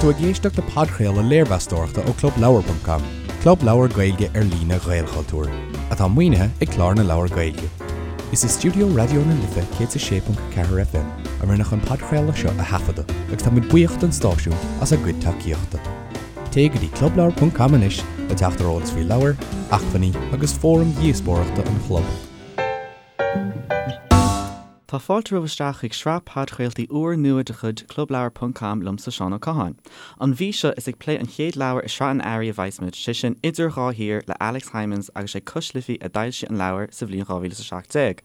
tú ag éisteacht le podchraoladh léirmheastóireachta ó ClubLeabhar.com, club leabhar Gaeilge ar líne Ghaelchultúir, atá maoinithe ag Clár na Leabhar Gaeilge. Is i stiúideo Raidió na Life 106.4 FM a rinneadh an podchraoladh seo a thaifeadadh agus tá muid buíoch don stáisiún as a gcuid tacaíochta. Téigh go dtí clubleabhar.com anois le teacht ar eolas faoi leabhair, acmhainní agus fóraim dhíospóireachta an chlub. Tá fáilte romhaibh isteach chuig sraith podchraoltaí úr nua de chuid Clubleabhar ponc com liomsa Seán Ó Catháin. An mhí seo is ag plé an chéad leabhar i sraith an Earraigh a bheas muid, sé sin Idir Dhá Thír le Alex Hijmans agus sé Cois Life a d'fhoilsigh an leabhar sa bhliain 2017.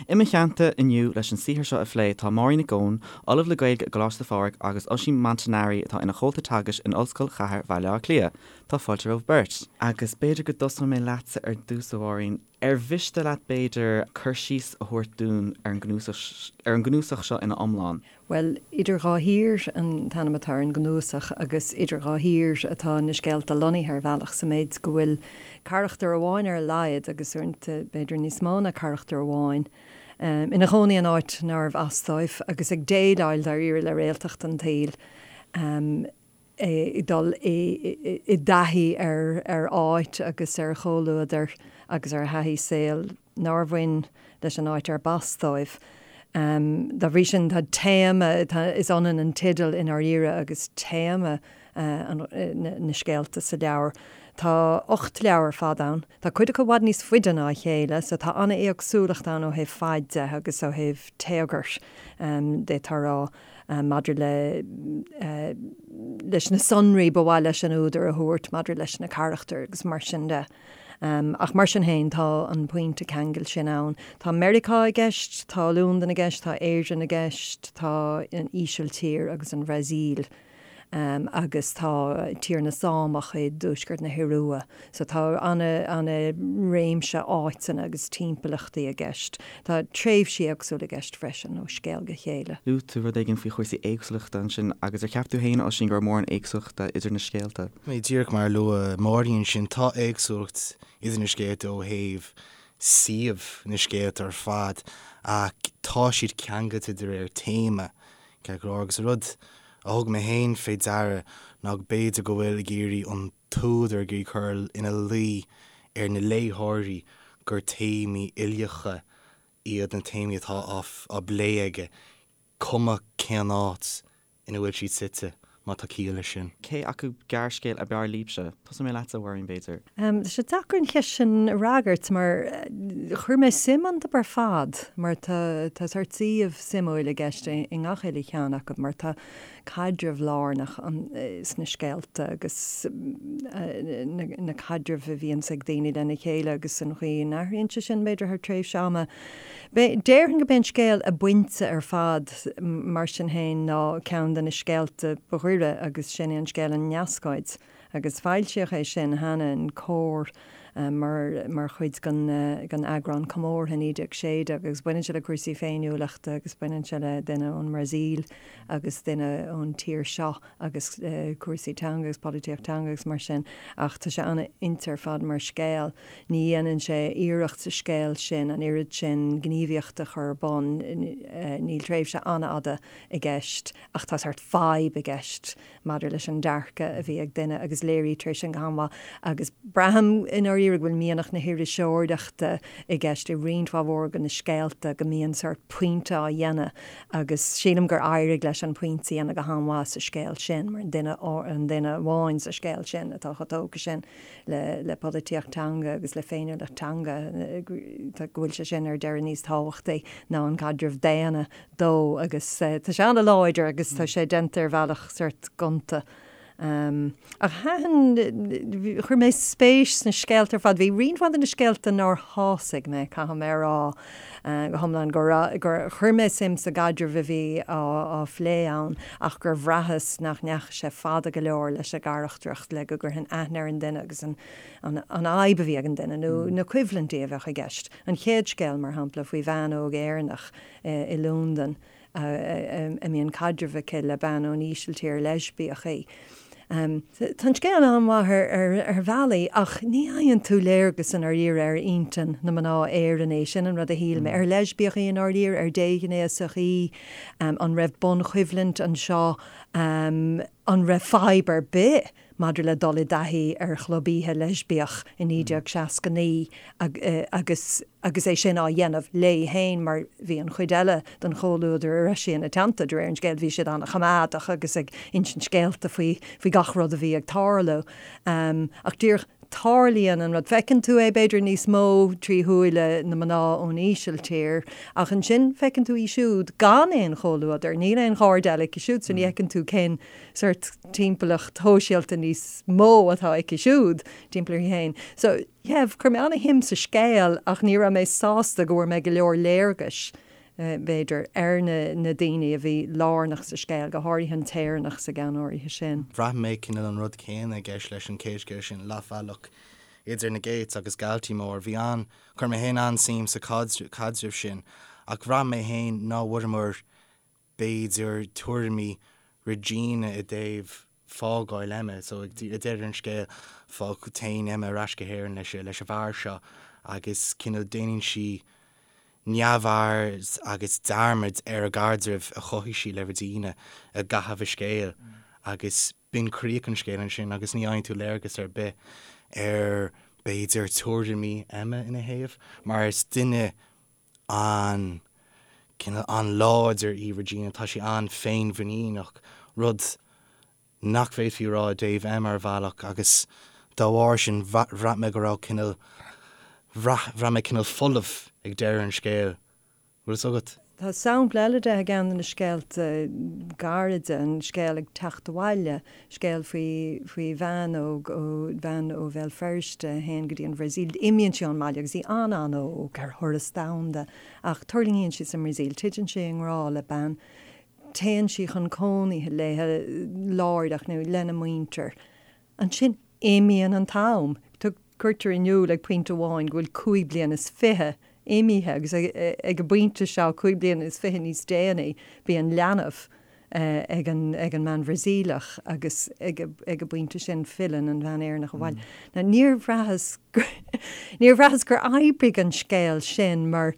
I mo theannta inniu leis an saothar seo a phlé tá Máirín Nic Eoin, Ollamh le Gaeilge i gColáiste Phádraig agus Oisín Montanari atá ina chomhalta teagaisc in Ollscoil Chathair Bhaile Átha Cliath. Tá fáilte romhaibh beirt. Agus b'fhéidir go dtosóidh mé leatsa ar dtús a Mháirín. Ar mhiste leat, b'fhéidir, cur síos a thabhairt dúinn ar an gcnuasach, ar an gcnuasach seo ina iomlán? Bhuel, Idir Dhá Thír an t-ainm atá ar an gcnuasach agus idir dhá thír atá na scéalta lonnaithe ar bhealach, sa méid go bhfuil carachtar amháin ar a laghad, agus uaireanta b'fhéidir níos mó ná carachtar amháin, ina chónaí in áit nárbh as dóibh agus ag déileáil dáiríre le réaltacht an tsaoil. ag dul i dtaithí ar áit agus ar chomhluadar agus ar thaithí saoil nár bhain leis an áit arb as dóibh. Dá bhrí sin, tá téama, is ionann an teideal i ndáiríre agus téama na scéalta sa leabhar. Tá 8 leabhar ar fad ann. Tá cuid acu i bhfad níos faide ná a chéile, so tá an-éagsúlacht ann ó thaobh faid de agus ó thaobh téagair, d'fhéadfá a rá. maidir le leis na sonraí ba mhaith leis an údar a thabhairt maidir leis na carachtair agus mar sin de. Ach mar sin féin, tá an pointe ceangail sin ann. Tá Meiriceá i gceist, tá Londain i gceist, tá Éirinn i gceist, tá an Ísiltír agus an Bhrasaíl. agus tá Tír na Sámach i dtuaisceart na hIorua. So tá ana-réimse áiteanna agus timpeallachtaí i gceist. Tá tréimhsí éagsúla i gceist freisin, ó scéal go chéile. Luaigh tú rud éigin faoi chúrsaí éagsúlachta ansin agus ar cheap tú féin, Oisín, go raibh mórán éagsúlachta idir na scéalta? Díreach mar a luaigh Máirín ansin, tá éagsúlacht idir na scéalta ó thaobh suíomh na scéalta ar fad ach tá siad ceangailte de réir téama Ceart go leor, agus an rud a thug mé féin fé deara ná go b'fhéidir go bhfuil ag iarraidh an t-údar ag iarraidh cur ina luí ar na léitheoirí gur téamaí uilíocha iad na téamaí atá á bplé aige, cuma cén áit ina bhfuil siad suite, má tá ciall leis sin. Cé acu gearrscéal ab fhearr libhse? Tosóidh mé leatsa, a Mháirín, b'fhéidir. Tá sé deacair an cheist sin a fhreagairt mar chuir mé suim iontu ar fad mar tá tá sórt suíomh suimiúil i gceist i ngach uile cheann acu mar tá caidreamh lárnach sna scéalta agus na caidrimh a bhíonns ag daoine lena chéile agus an chaoi a n-athraíonn sé sin b'fhéidir thar tréimhse ama. Déarfainn gurb é an scéal ab fhuinte ar fad mar sin féin ná ceann de na scéalta ba ghaire agus sin é an scéal An Neascóid. Agus foilsíodh é sin cheana in Comhar mar mar chuid den den eagrán comórtha 1916 agus baineann sé le cúrsaí féiniúlachta agus baineann sé le duine ón mBrasaíl agus duine ón tír seo agus cúrsaí teanga agus polaitíocht teanga agus mar sin ach tá sé an-fhuinte ar fad mar scéal. Ní dhéanann sé iarracht sa scéal sin an oiread sin gníomhaíochta a chur ar bun, níl tréimhse an-fhada i gceist ach tá sórt fadhb i gceist maidir leis an dearcadh a bhí ag duine agus léirítear é sin go han-mhaith agus braithim i ndáiríre go bhfuil mianach na hiriseoireachta i gceist i roinnt mhaith mhór de na scéalta, go mbíonn sórt pointe á dhéanamh agus sílim gur éirigh leis an pointe a dhéanamh go han-mhaith sa scéal sin mar an duine an duine amháin sa scéal sin atá chomh tógtha sin le le polaitíocht teanga agus le féiniúlacht teanga go bhfuil sé sin ar deireadh níos tábhachtaí ná an caidreamh daonna dó agus tá sé an-láidir agus tá sé déanta ar bhealach sórt gonta. Ach thaitin, chuir mé spéis sna scéalta ar fad. Bhí roinnt mhaith de na scéalta nár shásaigh mé, caithfidh mé a rá go hiomlán, gur chuir mé suim sa gcaidreamh a bhí á phlé ann ach gur bhraitheas nach ndeachaigh sé fada go leor leis an gcarachtracht le go gcuirfinn aithne ar an duine agus an fhadhb a bhí ag an duine nó na coimhlintí a bheadh i gceist. An chéad scéal, mar shampla, faoi bhean óg Éireannach i Londain a mbíonn caidreamh aici le bean ón Ísiltír, leispiach í. Tá an scéal an-mhaith ar bhealaí ach ní fhaigheann tú léargas i ndáiríre ar intinn na mná Éireannaí, sin an rud a shíl mé. Ar leispiach í i ndáiríre? Ar déghnéasach í? An raibh bunchoimhlint anseo? An raibh fadhb ar bith maidir le dul i dtaithí ar chlub oíche leispiach i 1969 agus agus é sin á dhéanamh léi féin mar bhí an chuid eile den chomhluadar a raibh sí ina teannta, de réir an scéil, bhí siad an-choimeádach agus ag insint scéalta faoi faoi gach rud a bhí ag tarlú. Ach díreach tarlaíonn an rud, feiceann tú é b'fhéidir níos mó trí shúile na mná ón Ísiltír ach ansin feiceann tú í siúd gan aon chomhluadar, níl aon chairde eile aici siúd so ní fheiceann tú cén sórt timpeallacht shóisialta níos mó atá aici siúd timpeall uirthi féin. So yeah, chuir mé an-shuim sa scéal ach ní raibh mé sásta go bhfuair mé go leor léargais b'fhéidir, ar na daoine a bhí lárnach sa scéal, go háirithe an tÉireannach sa gceann áirithe sin. Bhraith mé cineál an rud céanna i gceist leis an chéad scéal sin, Leathbhealach idir na Gates agus Galtymore. Bhí an, chuir mé féin an-suim sa chaidreamh sin ach bhraith mé féin ná bhfuaireamar b'fhéidir tuairimí Regina i dtaobh fágáil Emma. So ag deireadh an scéil fág, téann Emma ar ais go hÉirinn leis leis an bhfear seo agus cineál déanann sí neamhaird agus dearmad ar an gcaidreamh a chothaigh sí le Regina i gcaitheamh an scéil agus b'in críoch an scéil ansin agus ní fhaigheann tú léargas ar bith ar b'fhéidir tuairimí Emma ina thaobh mar is duine an cineál an-láidir í Regina, tá sí an-féinmhuiníneach, rud nach bhféadfaí a rá i dtaobh Emma ar bhealach agus dá bharr sin bhraith mé go raibh cineál, bhraith, bhraith mé cineál folamh ag deireadh an scéil. Bhfuil fhios agat? Tá sampla eile de i gceann de na scéalta gairide, an scéal Ag Teacht Abhaile, scéal faoi faoi bhean óg ó bhean ó Bhéal Feirste a théann go dtí an Bhrasaíl. Imíonn sí ón mbaile agus í an-an-óg ar thuras domhanda ach tuirlingíonn sí sa mBrasaíl, titeann sí i ngrá le bean, téann sí chun cónaithe léi láithreach nó lena muintir. Ansin imíonn an t-am. Cuirtear in iúl ag pointe amháin go bhfuil 25 bliana imithe agus ag an bpointe seo, 25 bliana níos déanaí, bíonn leanbh ag an mbean Bhrasaíleach agus ag an bpointe sin filleann an bhean Éireannach abhaile. Now níor bhraitheas níor bhraitheas gur oibrigh an scéal sin mar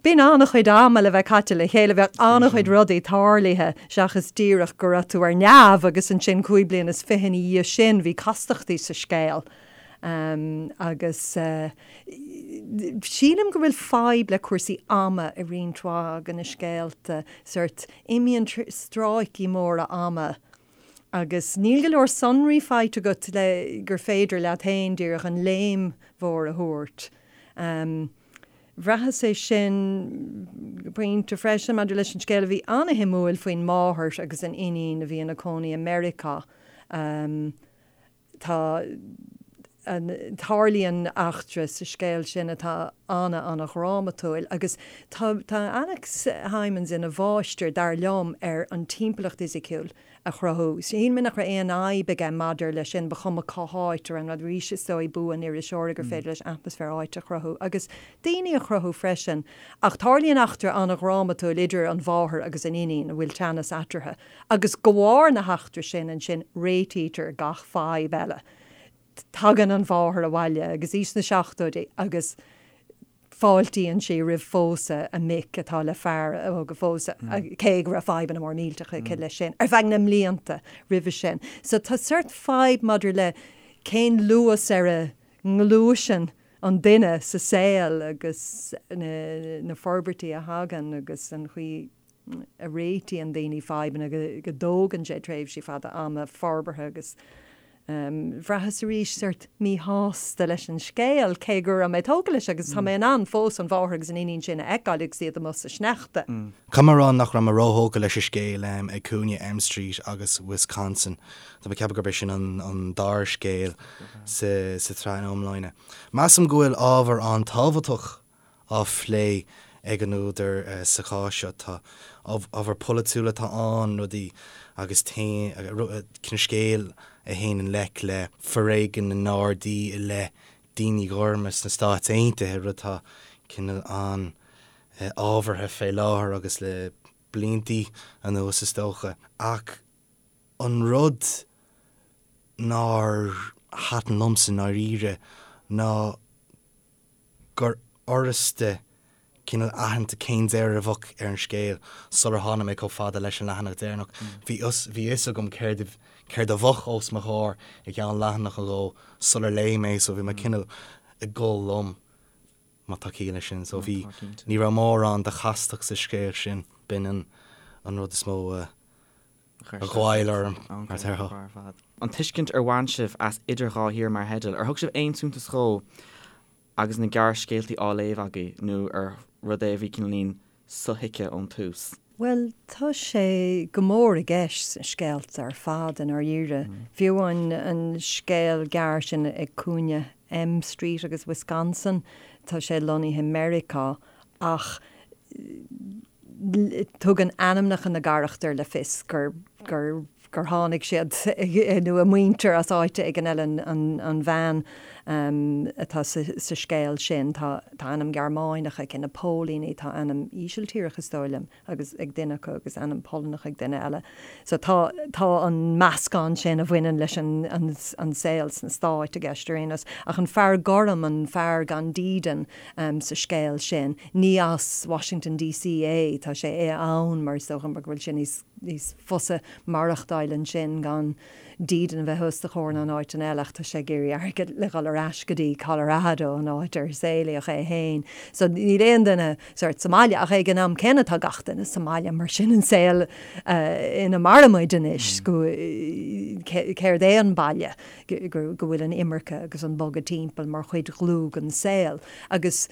Bíonn an-chuid ama le bheith caite le chéile, bheadh an-chuid rudaí tarlaithe seachas díreach go raibh tú ar neamh agus ansin 25 bliana ina dhiaidh sin bhí castachtaí sa scéal. Agus sílim go bhfuil fadhb le cúrsaí ama i roinnt mhaith de na scéalta, sórt imíonn stráicí móra ama agus níl go leor sonraí faighte agat le gur féidir leat féin díreach an léim mhór a thabhairt. Bhraitheas é sin go pointe freisin maidir leis an scéal a bhí an-shuimiúil faoin máthair agus an iníon a bhí ina cónaí i Meiriceá. Tá tarlaíonn eachtra sa scéal sin atá ana-ana-dhrámatúil agus tá tá Alex Hijmans ina mháistir, dar liom, ar an timpeallacht fhisiciúil a chruthú. Shíl mé nach raibh aon fhadhb aige maidir leis sin, ba chuma cá háit a raibh an rud. Arís, is dóigh bua an iriseora gur féidir leis atmaisféar áite a chruthú agus daoine a chruthú freisin. Ach tarlaíonn eachtra an-dhrámatúil idir an mháthair agus an iníon, a bhfuil teannas eatarthu, agus de bharr na heachtra sin ansin réitítear gach fadhb eile. Tagann an mháthair abhaile agus í sna seachtóidí agus fáiltíonn sí roimh phósadh a mic atá le fear óg a phósadh, cé go raibh fadhbanna mór millteacha aici leis sin ar feadh na mblianta roimhe sin. So tá sórt fadhb maidir le cén luas ar a ngluaiseann an duine sa saol agus na forbairtí a thagann agus an chaoi a réitíonn daoine fadhbanna, go dtógann sé tréimhsí fada ama forbartha agus bhraitheas arís sórt míshásta leis an scéal, cé go raibh mé tógtha leis agus tá mé in ann fós an mháthair agus an iníon sin a fheiceáil agus iad amuigh sa sneachta. Caithfidh mé a rá nach raibh mé róthógtha leis an scéal ag cúinne M Street agus Wisconsin. Tá mé ag ceapadh gurb é sin an dara scéal sa tsraith ina iomláine. Measaim go bhfuil ábhar an-tábhachtach á phlé ag an údar sa chás seo. Tá ábhar polaitiúil atá ann, rudaí agus cineál scéal a théann i ngleic le foréigean na nGardaí i leith daoine gorma sna Stáit Aontaithe, rud atá cineál an-ábhartha fé láthair agus le bliantaí anuas is dócha. Ach an rud nár thaitin liomsa i ndáiríre ná gur fhurasta. cineál aitheanta cén deireadh a bheadh ar an scéal sular tháinig mé chomh fada leis an leathanach deireanach. Bhí fhios bhí fhios agam céard céard a bheadh os mo chomhair i gceann leathanach nó dhó sular léigh mé so bhí mé cineál ag dul liom má tá ciall leis sin. So bhí ní raibh mórán de chastacht sa scéal sin, b'in an an rud is mó a a ghoill orm mar a déarfá. An tuiscint ar bhain sibh as Idir Dhá Thír mar theideal, ar thug sibh aon suntas dhó agus na gearrscéaltaí á léamh agaibh nó ar rud é a bhí cineáilín sothuigthe ón tús? Bhuel, tá sé go mór i gceist sna scéalta ar fad i ndáiríre. Fiú amháin an scéal gearr sin ag cúinne M Street agus Wisconsin, tá sé lonnaithe i Meiriceá ach tugann ainmneacha na gcarachtar le fios gur gur gur tháinig siad nó a muintir as áit éigin eile, an bhean atá sa scéal sin, tá ainm Gearmáineach aici, na póilíní, tá ainm Ísiltíreach is dóigh liom agus ag duine acu agus ainm Polannach ag duine eile. So tá tá an meascán sin a bhaineann leis an an saol sna Stáit i gceist ar aon nós. Ach an fear gorm, an fear gan dídean sa scéal sin, ní as Washington DC é, tá sé ann mar is dócha mar go bhfuil sé níos níos fusa maireachtáil ansin gan dídean a bheith os do chomhair ná in áiteanna eile ach tá sé ag iarraidh airgead le dhul ar ais go dtí Colorado, an áit ar saolaíodh é féin. So níl aon duine sort sa mbaile ach ag an am céanna tá gach duine sa mbaile mar sin an saol ina mairimid anois go céard é an baile go bhfuil an imirce agus an bogadh timpeall mar chuid dhlúth den saol agus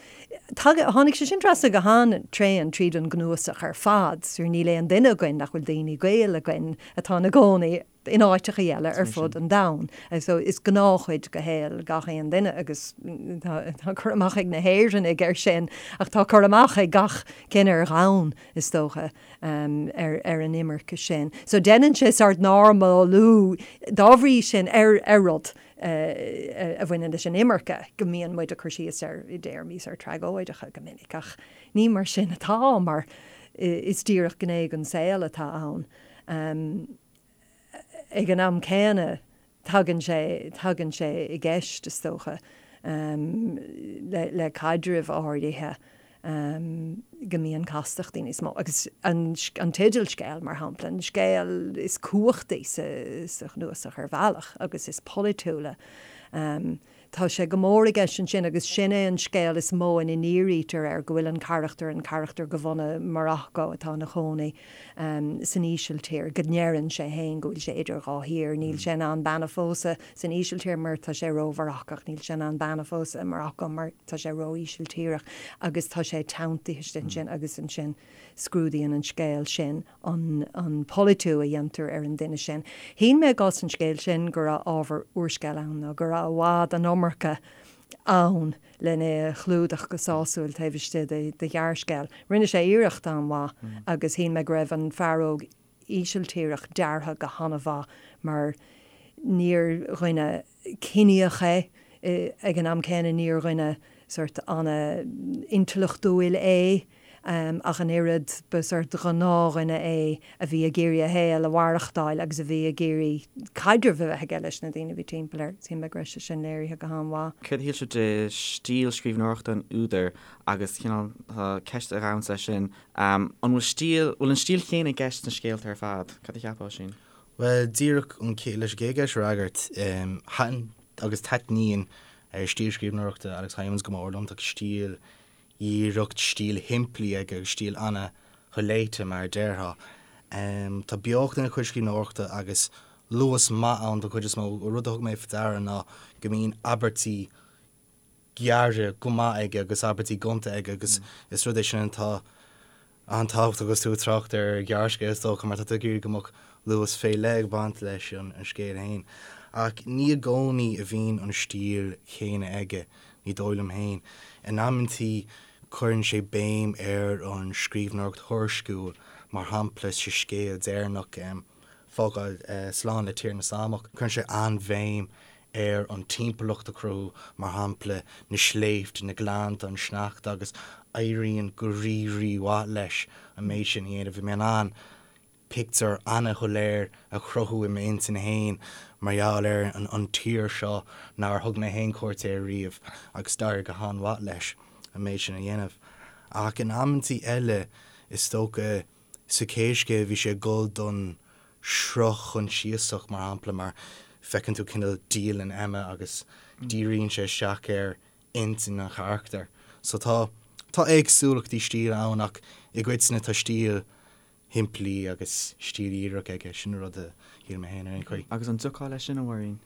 Tháinig sé sin trasna go han-tréan tríd an gcnuasach ar fad. Sure níl aon duine againn nach bhfuil daoine gaoil againn atá ina gcónaí in áiteachaí eile ar fud an domhain. So is gnáthchuid de shaol gach aon duine agus tá cur amach ag na hÉireannaigh air sin ach tá cur amach ag gach cine ar dhomhan, is dócha, ar ar an imirce sin. So déanann sé sort normalú dá bhrí sin ar ar rud. a bhaineann leis an imirce, go mbíonn muid ag cur síos air i dtéarmaí sort tragóideacha go minic, ach ní mar sin atá, mar is díreach gné den saol atá ann. Ag an am céanna, tagann sé, tagann sé i gceist, is dócha, le, le caidrimh áirithe. go mbíonn castachtaí níos mó. Agus an teideal scéil, mar shampla, an scéal is cumhachtaí sa chnuasach ar bhealach agus is polaitiúla, tá sé go mór i gceist ansin agus sin é an scéal is mó ina ndírítear air go bhfuil an carachtar, an carachtar de bhunadh Morocco atá ina chónaí san Ísiltír, go ndeireann sé féin go bhfuil sé idir dhá thír, níl sé in ann bean a phósadh san Ísiltír mar tá sé ró-Mharacach, níl sé in ann bean a phósadh i Morocco mar tá sé ró-Ísiltíreach agus tá sé teanntaithe istigh ansin agus ansin scrúdaíonn an scéal sin an an polaitiú a dhéantar ar an duine sin. Shíl mé i gcás an scéil sin go raibh ábhar úrscéil ann nó go raibh i bhfad an iomarca ann lena é a chlúdach go sásúil taobh istigh de de ghearrscéal. Rinne sé iarracht an-mhaith agus shíl mé go raibh an fear óg Ísiltíreach deartha go han-mhaith mar níor dhuine ciníoch é, ag an am céanna níor dhuine sort an-intleachtúil é ach an oiread, ba sort gnáthdhuine é a bhí ag iarraidh a shaol a mhaireachtáil agus a bhí ag iarraidh caidreamh a bheith aige leis na daoine a bhí timpeall air. Shíl mé go raibh sé sin léirithe go han-mhaith. Céard a shíl sibh de stíl scríbhneoireachta an údair agus cineál ceist a ghabhanns leis sin, An bhfuil stíl, bhfuil an stíl chéanna i gceist sna scéalta ar fad? Cad a cheapfá, Oisín? Bhuel, díreach an chéad, leis an gcéad cheist a fhreagairt, thaitin agus taitníonn stíl scríbhneoireachta Alex Hijmans go mór liom. Tá stíl dhíreach, stíl shimplí aige agus stíl ana-sholéite, mar a déarfá. Tá beocht ina chuid scríbhneoireachta agus luas maith ann don chuid is mó. Rud a thug mé faoi deara ná go mbíonn abairtí gearra go maith aige agus abairtí gonta aige agus is rud é sin atá an-tábhachtach agus tú ag trácht ar ghearrscéal is dócha mar tá tú ag iarraidh go mbeadh luas fé leith ag baint leis an scéal féin. Ach ní i gcónaí a bhíonn an stíl chéanna aige, ní dóigh liom féin. In amantaí cuireann sé béim ar an scríbhneoireacht thuairisciúil, mar shampla sa scéal deireanach, Fágáil Slán le Tír na Sámach, cuireann sé an-bhéim ar an timpeallacht a chruthú, mar shampla, na sléibhte, na gleannta, an sneachta, agus éiríonn go rí-rí-mhaith leis an méid sin a dhéanamh. Bhí mé in ann pictiúr ana-shoiléir a chruthú i m'intinn féin mar gheall ar an tír seo nár thug mé féin cuairt air riamh agus d'éirigh go han-mhaith leis an méid sin a dhéanamh. Ach in amantaí eile, is dócha, sa chéad scéal bhí sé ag dul don sruth choinsiasach, mar shampla, mar feiceann tú cineál dialann Emma agus díríonn sé isteach ar intinn an charachtair. So tá, tá éagsúlachtaí stíle ann ach i gcoitinne tá stíl shimplí agus stíl dhíreach aige, sin an rud a shíl mé féin ar aon chaoi. Agus an dtiocfá leis sin, a Mháirín?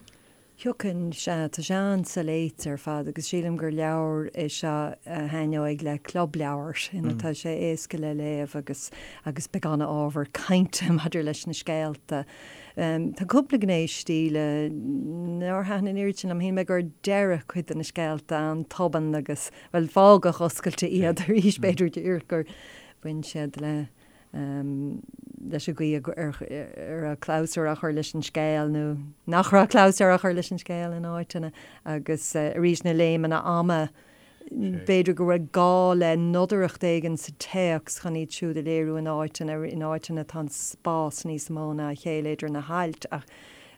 Thiocfainn, sea, tá sé an-soléite ar fad agus sílim gur leabhar é seo a thaitneoidh le club leabhar ina tá sé éasca le léamh agus agus beidh an-ábhar cainte maidir leis na scéalta. Tá cúpla gné stíle nár thaitin an oiread sin liom. Shíl mé gur deireadh cuid de na scéalta an-tobann agus, bhuel, fágadh oscailte iad arís b'fhéidir díreach gur bhain siad le leis an gcaoi ar raibh clabhsúr á chur leis an scéal nó nach raibh clabhsúr á chur leis an scéal in áiteanna agus arís na léimeanna ama, b'fhéidir go raibh gá le nodaireacht éigin sa téacs chun iad siúd a léiriú in áiteanna, in áiteanna tá an spás níos mó ná a chéile idir na hailt ach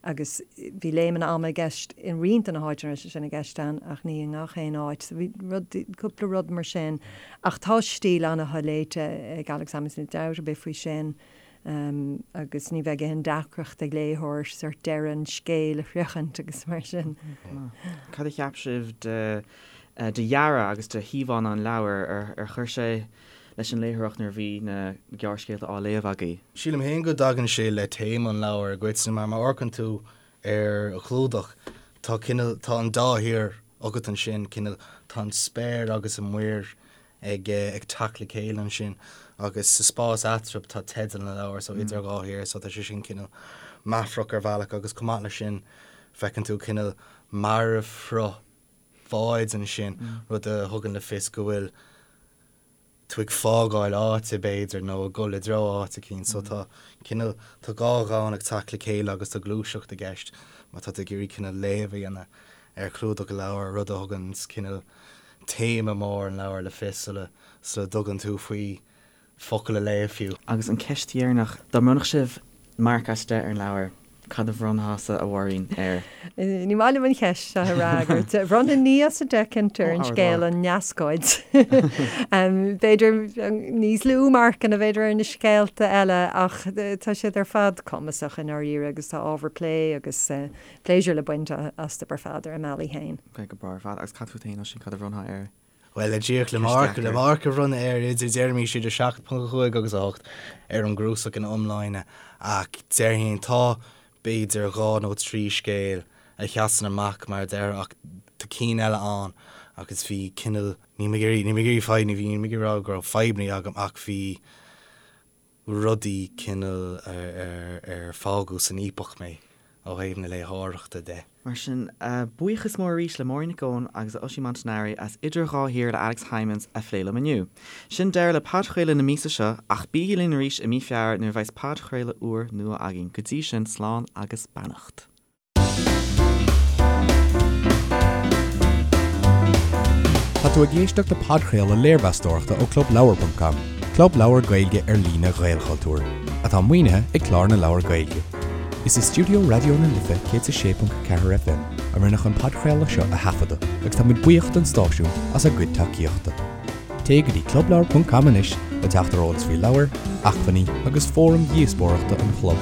agus bhí léimeanna ama i gceist i roinnt de na háiteanna a raibh sé sin i gceist ann ach ní i ngach aon áit. So bhí rud, cúpla rud mar sin. Ach tá stíl an-sholéite ag Alex Hijmans, níl dabht ar bith faoi sin, agus ní bheidh aon deacracht ag léitheoir sort deireadh an scéil a shroichint agus mar sin. Cad a cheap sibh de de dhearadh agus de híomhánna an leabhair? Ar chuir sé leis an léitheoireacht nuair a bhí na gearrscéalta á léamh agaibh? Sílim féin go dtagann sé le téama an leabhair i gcoitinne mar má amharcann tú ar an chlúdach tá cineál, tá an dá thír agat ansin, cineál, tá an spéir agus an mhuir ag ag teacht le chéile ansin agus sa spás eatarthu tá teideal an leabhair so idir dhá thír so tá sé sin cineál meafarach ar bhealach agus chomh maith leis sin feiceann tú cineál marbhshruth báid ansin, rud a thugann le fios go bhfuil tú ag fágáil áite, b'fhéidir, nó ag dul i dtreo áit eicínt. So tá cineál, tá dhá dhomhan ag teacht le chéile agus tá gluaiseacht i gceist má tá tú ag iarraidh cineál léamh a dhéanamh ar chlúdach an leabhair, rud a thugann cineál téama mór an leabhair le fios sula sula dtugann tú faoi focal a léamh fiú. Agus an ceist dheireanach, dá mbronnfadh sibh marc as 10 ar an leabhar, cad a bhronnfása, a Mháirín, air? Ní maith liom an cheist seo a fhreagairt. Bhronnfainn 9 as 10 cinnte ar an scéal An Neascóid. B'fhéidir níos lú marcanna b'fhéidir ar na scéalta eile ach tá siad ar fad cumasach i ndáiríre agus tá ábhar plé agus pléisiúr le baint astu ar fad ar a mbealaí féin. Ok, go breá ar fad. Agus cad fút féin, Oisín, cad a bhronnfá air? Bhuel, le díreach le marc, le marc a bhronnadh air idir, déarfaimis idir 7.5 agus 8 ar an gcnuasach ina iomláine ach déarfainn tá b'fhéidir dhá nó trí scéal a sheasann amach mar a déarfá ach tá cinn eile ann agus bhí cineál, níl mé ag iarraidh, níl mé ag iarraidh fadhb, ní bhí, níl mé ag iarraidh rá go raibh fadhbanna agam ach bhí rudaí cineál ar fágadh san fhaopach mé ó thaobh na léitheoireachta de. Mar sin, buíochas mór arís le Máirín Nic Eoin agus Oisín Montanari as Idir Dhá Thír le Alex Hijmans a phlé liom inniu. Sin deireadh le podchraoladh na míosa seo, ach bígí linn arís i mí Feabhra nuair a bheas podchraoladh úr nua againn. Go dtí sin, slán agus beannacht. Tá tú ag éisteacht le podchraoladh léirmheastóireachta ó ClubLeabhar.com, club leabhar Gaeilge ar líne Ghaelchultúir, atá maoinithe ag Clár na Leabhar Gaeilge. Is i stiúideo Raidió na Life 106.4 FM a rinneadh an podchraoladh seo a thaifeadadh agus tá muid buíoch don stáisiún as a gcuid tacaíochta. Téigh go dtí clubleabhar.com anois le teacht ar eolas faoi leabhair, acmhainní agus fóraim dhíospóireachta an chlub.